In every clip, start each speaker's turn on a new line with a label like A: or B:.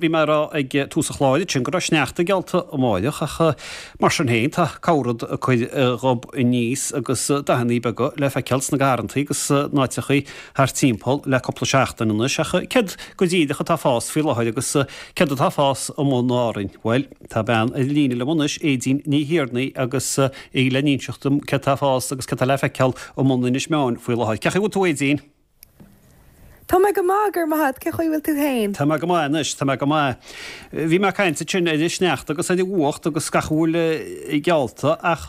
A: bhí mé ag rá ag tús an chláir ansin go raibh sneachta geallta amáireach ach mar sin féin tá corr-rud ag cur a ghob aníos agus dathannaí beaga le feiceáil sna garrantaí agus in áiteachaí thart timpeall le cúpla seachtain anois ach céard go díreach atá ag fás faoi láthair agus céard atá ag fás amuigh in Árainn? Bhuel, tá bean ar an líne liom anois, Aedín Ní Thiarnaigh agus í le n-inseacht dom céard atá ag fás agus céard atá le feiceáil amuigh in Inis Meáin faoi láthair. Cén chaoi a bhfuil tú Aedín?
B: Tá mé go maith, go raibh maith agat. Cén chaoi a bhfuil tú féin?
A: Tá mé go maith anois, tá mé go maith. Bhí mé ag caint ansin ar an sneachta agus ar an bhfuacht agus gach a bhfuil geallta ach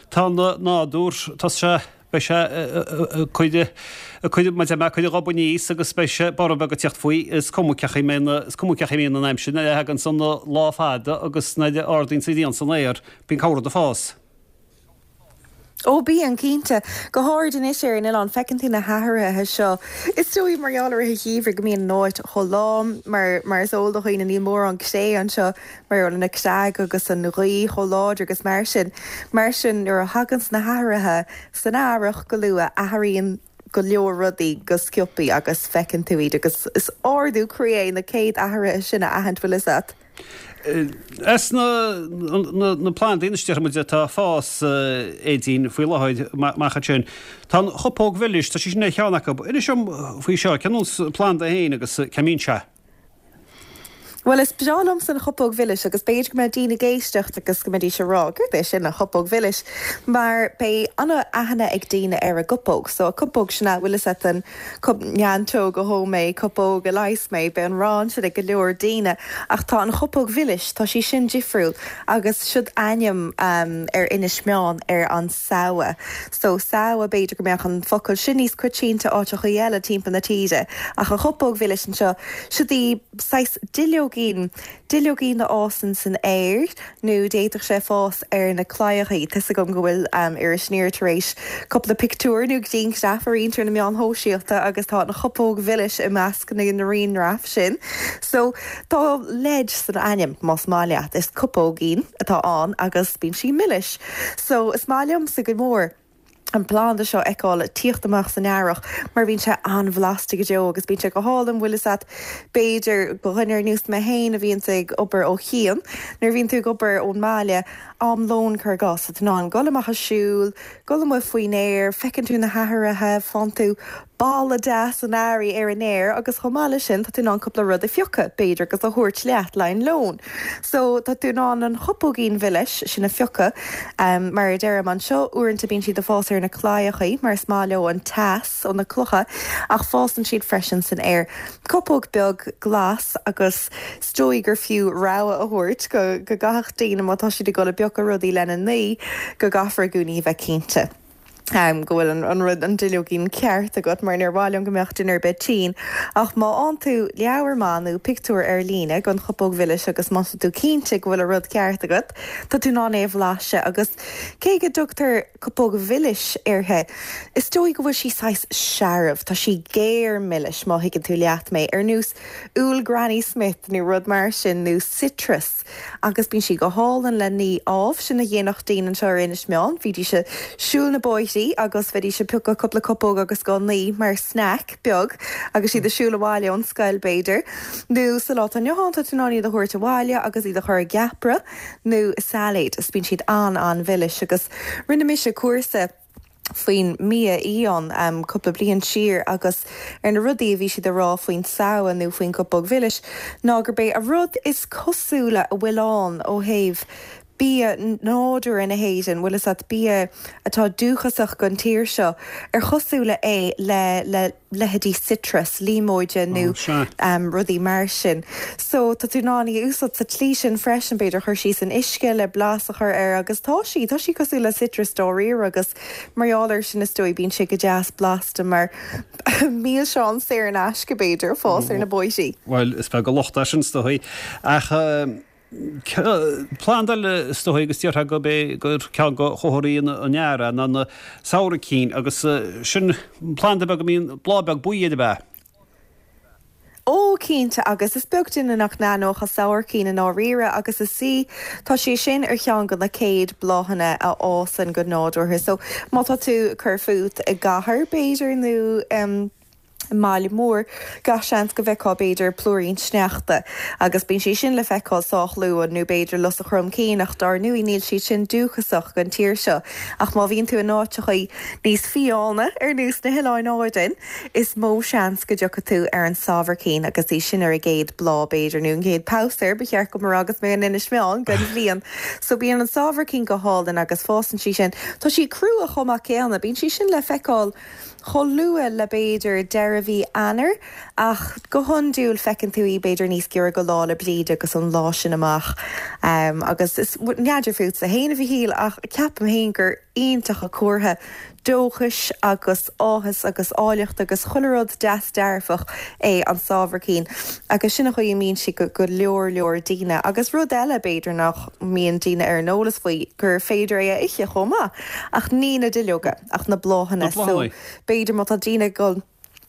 A: tá an nádúr, tá sé, beidh sé ag cur, ag cur, mar a deir mé, ag cur a ghob aníos agus beidh sé borradh beag ag tíocht faoi. Is cuma cén chaoi a mbíonn, is cuma cén chaoi a mbíonn an aimsir nuair a thagann an lá fada agus nuair a ardaíonn an ghrian san aer, bíonn corr-rud ag fás.
B: Ó bíonn, cinnte. Go háirid anois ar an oileán, feiceann tú na hathruithe seo. Is dóigh, mar gheall ar rith an gheimhridh, go mbíonn an áit chomh lom, mar, mar is eol do dhaoine, níl mórán cré anseo, mar gheall ar na creaga agus an ghaoth chomh láidir agus mar sin. Mar sin, nuair a thaganns na hathruithe san earrach go luath, athraíonn go leor rudaí go sciobthaí agus feiceann tú iad agus is ardú croí é na céad athruithe sin a aithint, bhfuil fhios a't.
A: As na plandaí anois déarfaidh muid atá ag fás Aedín faoi láthair amach ansin. Tá an chupóg mhilis, tá sí sin ar cheann acu. Inis dom faoi seo, cén nós planda é féin agus cá mbíonn sé?
B: Bhuel, is breá liomsa an chupóg mhilis agus b'fhéidir go mbeidh daoine ag éisteacht agus go mbeidís ag rá, céard é sin, an chupóg mhilis? Mar beidh an-aithne ag daoine ar an gcupóg. So, an cupóg sin a, bhfuil fhios a't, an Cup neantóg a dhó mé, cupóg a leigheas mé, beidh an rann sin ag go leor daoine. Ach tá an chupóg mhilis, tá sí sin difriúil agus siod ainm ar Inis Meáin ar an samha. So, samha, b'fhéidir go mbeadh an focal sin níos coitianta áiteachaí eile timpeall na tíre. Ach an chupóg mhilis anseo, siod í saghas duilleoigín, Duilleoigín a fhásann san aer, nó d'fhéadfadh sé fás ar na claíochaí. Tá 'fhios agam go bhfuil Iris Aniar tar éis cúpla pictiúr nó grianghraf a roinnt ar na meáin shóisialta agus tá an chupóg mhilis i measc na ngrianghraf sin. So, tá leid san ainm, más maith leat. Is cupóigín atá ann agus bíonn sí milis. So, is maith liomsa go mór. an planda seo a fheiceáil ag tíocht amach san earrach mar bíonn sé an-bhlasta go deo agus bíonn sé go hálainn, bhfuil fhios a't, b'fhéidir do dhuine ar nós mé féin a bhíonns ag obair ó chian, nuair a bhíonn tú ag obair ón mbaile, am lóin cuir i gcás, tá tú in ann dul amach ag siúl, dul amuigh faoin aer, feiceann tú na hathruithe, faigheann tú boladh deas an earraigh ar an aer agus chomh maith leis sin tá tú in ann cúpla rud a phiocadh, b'fhéidir, agus a thabhairt leat le haghaidh an lóin. So tá tú in ann an chupóigín mhilis sin a phiocadh. Mar a deirim anseo, uaireanta bíonn siad ag fás ar na claíochaí mar is maith leo an teas ó na clocha ach fásann siad freisin san aer. Cupóg beag glas agus is dóigh gur fiú rabhadh a thabhairt go go gcaithfeadh daoine má tá siad ag dul ag piocadh rudaí lena n-ní go gcaithfear i gcónaí a bheith cinnte. go bhfuil an rud, an duilleoigín ceart agat, mar níor mhaith liom go mbeadh duine ar bith tinn. Ach má fhaigheann tú leabhar maith nó pictiúr ar líne den chupóg mhilis agus má tá tú cinnte go bhfuil an rud ceart agat, tá tú in ann é a bhlaiseadh. Agus cé go dtugtar cupóg mhilis uirthi, is dóigh go bhfuil sí saghas searbh, tá sí géar milis, má thuigeann tú leat mé, ar nós úll Granny Smith nó rud mar sin, nó citrus. Agus bíonn sí go hálainn le ní, ámh. Sin a dhéanfadh daoine anseo ar Inis Meáin. Bhídís ag siúl na bóithrí agus bheidís ag piocadh cúpla cupóg agus á n-ní mar snack beag agus iad ag siúl abhaile ón scoil, b'fhéidir. Nó sa lá atá inniu ann, tá tú in ann iad a thabhairt abhaile agus iad a chur i gceapaire nó i sailéad is bíonn siad an-an-mhilis. Agus rinne mise cúrsa. faoin mbia fhiáin cúpla bliain siar agus ar na rudaí a bhí siad a rá faoin tsamha nó faoin gcupóg mhilis ná gurb é an rud is cosúla a bhfuil ann ó thaobh bia nádúrtha na hÉireann, bhfuil fhios a't, bia atá dúchasach don tír seo, ar chosúla é le le leithéidí citrus, líomóide nó rudaí mar sin. So tá tú in ann í a úsáid sa tslí sin freisin, b'fhéidir cur sí san uisce le blas a chur air agus tá sí, tá sí cosúil le citrus dáiríre agus mar gheall air sin is dóigh bíonn sé go deas blasta mar milseán saor in aisce b'fhéidir, ag fás ar na bóithrí.
A: Bhuel, is beag an locht é sin is dóigh ach. Planda eile is dóigh agus déarfá gurb é gur ceann de chomharthaí an earraigh ná na sabhaircín agus sin planda beag a mbíonn bláth beag buí air ab ea?
B: Ó, cinnte, agus is beag duine nach n-aithneodh an sabhaircín i ndáiríre agus is í, tá sé sin ar cheann de na céad bláthanna a fhásann go nádúrtha. So, má tá tú ag cur fút i gcathair, b'fhéidir, nó. I mbaile mór, gach seans go bhfeicfeá b'fhéidir plúirín sneachta, agus bíonn sé sin le feiceáil sách luath, nó b'fhéidir lus an chromchinn, ach dár ndóigh níl siad sin dúchasach don tír seo. Ach má bhíonn tú in áiteachaí níos fiáine, ar nós na hOileáin Árainn, is mó seans go dtiocfaidh tú ar an sabhaircín agus í sin ar a gcéad bláth, b'fhéidir, nó an gcéad pamhsar, ba cheart dom a rá agus mé in Inis Meáin, den bhliain. So bíonn an sabhaircín go hálainn agus fásann sí sin. Tá sí crua chomh maith céanna, bíonn sí sin le feiceáil chomh luath le b'fhéidir deireadh mhí Eanáir ach go hiondúil feiceann tú í b'fhéidir níos giorra go Lá 'le Bríde agus an lá sin amach. Agus is, n'fheadar fútsa fhéin a Mhichíl ach ceapaim fhéin gur iontach an comhartha dóchais agus áthas agus áilleacht agus chuile rud deas dearfach é an sabhaircín agus sin an chaoi a mbíonn sí go go leor leor daoine. Agus rud eile b'fhéidir nach mbíonn daoine ar an eolas faoi gur féidir é a ithe chomh maith ach ní na duilleoga. ach na bláthanna. So, b'fhéidir má tá daoine ag dul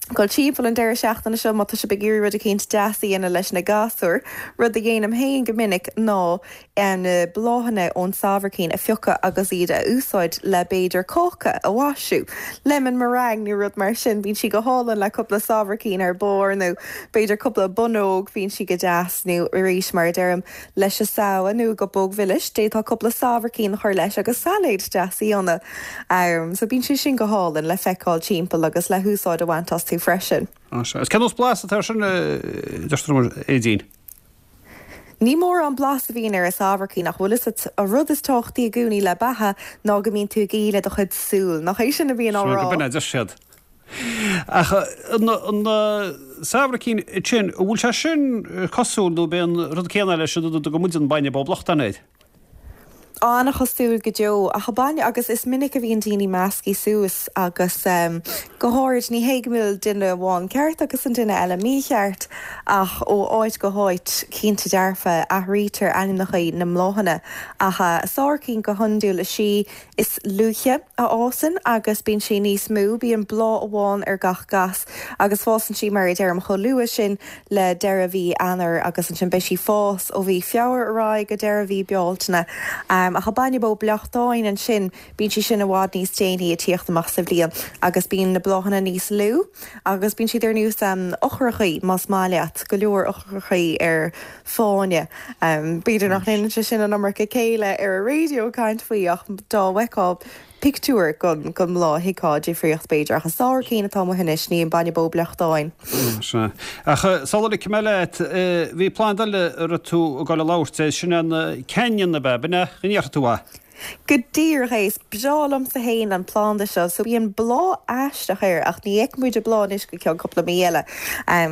B: dul timpeall an deireadh seachtaine seo, má tá sibh ag iarraidh rud eicínt deas a dhéanamh leis na gasúir, rud a dhéanaim féin go minic ná na bláthanna ón sabhaircín a phiocadh agus iad a úsáid le b'fhéidir cáca a mhaisiú, lemon meringue nó rud mar sin, bíonn sí go hálainn le cúpla sabhaircín ar barr nó b'fhéidir cúpla bonnóg, bíonn sí go deas nó arís mar a deirim, leis an samha nó i gcupóg mhilis, d'fhéadfá cúpla sabhaircín a chur leis agus sailéad deas a dhéanamh. So bíonn sé sin go hálainn le feiceáil timpeall agus le húsáid a bhaint astu freisin.
A: Sea. Is cén nós blas atá air sin, deirtear liom, a Aedín?
B: Ní mórán blas a bhíonn ar an sabhaircín ach bhfuil fhios a't, an rud is tábhachtaí i gcónaí le beatha ná go mbíonn tú ag ithe le do chuid súl, nach é sin a bhíonn á
A: rá? Sea, go b'in é a deir siad. Ach an sabhaircín sin, an bhfuil sé sin cosúil nó b'é an rud céanna leis an rud a dtugann muid an bainne bó blachtáin air?
B: An-chosúil go deo. Ach an bainne, agus is minic a bhíonn daoine measctha suas agus go háirid, ní hé go bhfuil duine amháin ceart agus an duine eile mícheart ach ó áit go háit, cinnte dearfa, athraítear ainmneacha na mbláthanna. Ach sabhaircín go hiondúil is í is luaithe a fhásann agus bíonn sí níos mó, bíonn bláth amháin ar gach gas agus fásann sí mar a deirim chomh luath sin le deireadh mhí Eanáir agus ansin beidh sí fás ó mhí Feabhra ar aghaidh go deireadh mhí Bealtaine. Ach an bainne bó bleachtáin ansin bíonn sí sin i bhfad níos déanaí ag tíocht amach sa bhliain agus bíonn na bláthanna níos lú agus bíonn siad ar nós eochrachaí más maith leat, go leor eochrachaí ar fáinne. B'fhéidir nach ndéanann sé sin an iomarca céille ar an raidió caint faoi ach dá bhfeicfeá pictiúr den mbláth thuigfeá difríocht b'fhéidir. Ach an sabhaircín atá amuigh anois, ní an bainne bó bleachtáin.
A: Sea. Ach sula ligfidh mé leat, bhí planda eile a raibh tú ag dul a labhairt air, sin an ceannann ab ea? B'in é? An ndéarfaidh tú é?
B: Go díreach é. Is breá liomsa fhéin an planda seo. So bíonn bláth aisteach air ach ní fheicfidh muid an bláth anois go ceann cúpla mí eile.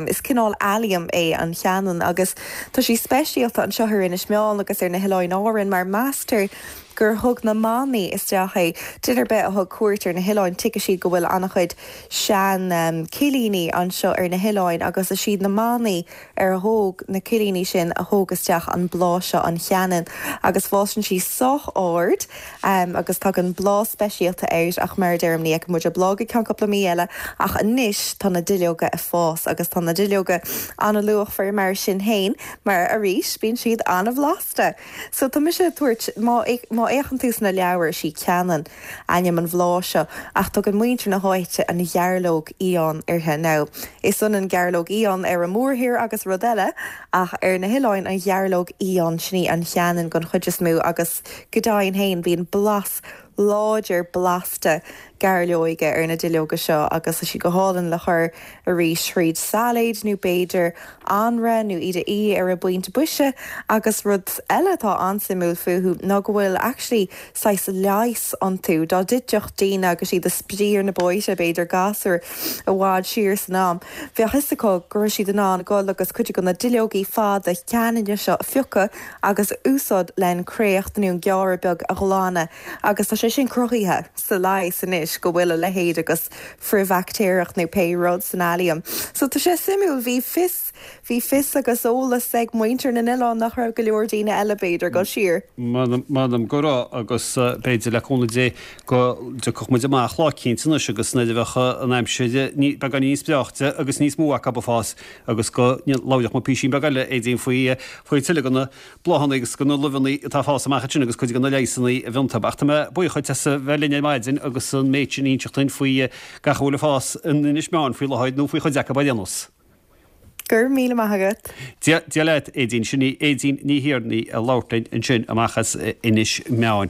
B: Is cineál allium é an cheannann agus tá sí speisialta anseo ar Inis Meáin agus ar na hOileáin Árann mar meastar gur thug na manaigh isteach é. Duine ar bith a thug cuairt ar na hoileáin tuigfidh siad go bhfuil an-chuid sean cillíní anseo ar na hoileáin agus is iad na manaigh ar thóg na cillíní sin a thóg isteach an bláth seo, an cheannann, agus fásann sí sách ard agus tagann bláth speisialta air ach mar a deirim ní fheicfidh muid an bláth go ceann cúpla mí eile ach anois tá na duilleoga ag fás agus tá na duilleoga an-luachmhar mar sin fhéin mar arís bíonn siad an-bhlasta. So tá mise ag tabhairt, má má fhéachann tú sna leabhair is í ceannann ainm an bhláth seo ach tugann muintir na háite an ghearrlóg fhiáin uirthi. Now, is ionann gearrlóg fhiáin ar an mórthír agus rud eile ach ar na hoileáin an ghearrlóg fhiáin, sin í an cheannann den chuid is mó agus go deimhin féin bíonn blas láidir blasta gairleoige ar na duilleoga seo agus tá siad go hálainn le cur arís thríd sailéid nó b'fhéidir anraith nó iad a ithe ar an bpointe boise agus rud eile atá an-suimiúil fúthu ná go bhfuil actually saghas leigheas iontu. Dá dtitfeadh daoine agus iad ag spraoi ar na bóithre, b'fhéidir gasúir i bhfad siar san am, bheadh fhios acu go raibh siad in ann dul agus cuid de na duilleogaí fada ceanainne seo a phiocadh agus a úsáid len créacht nó an gearradh beag a ghlanadh agus tá sé sin cruthaithe sa leigheas anois go bhfuil a leithéid agus frithbhaictéarach nó pé rud san allium. So tá sé suimiúil, bhí fios, bhí fios agus eolas ag muintir na n-oileán nach raibh go leor daoine eile b'fhéidir, dul siar.
A: M'anam go raibh agus b'fhéidir le cúnamh Dé go dtiocfadh muid amach lá eicínt anois agus nuair a bheadh an aimsir beagán níos breáichte agus níos mó acu ag fás agus go labhródh muid písín beag eile Aedín faoi faoi tuilleadh de na bláthanna agus de na luibheanna atá ag fás amach ansin agus cuid de na leigheasanna a bhí iontu. Ach tá mé buíoch. dhuit as a bheith linn ar maidin agus an méid sin a inseacht duinn faoi gach a bhfuil ag fás in Inis Meáin faoi láthair, nó faoi chuid acu ar aon nós.
B: Go raibh míle maith agat.
A: Dia leat, Aedín. Sin í Aedín Ní Thiarnaigh ag labhairt linn ansin amach as Inis Meáin.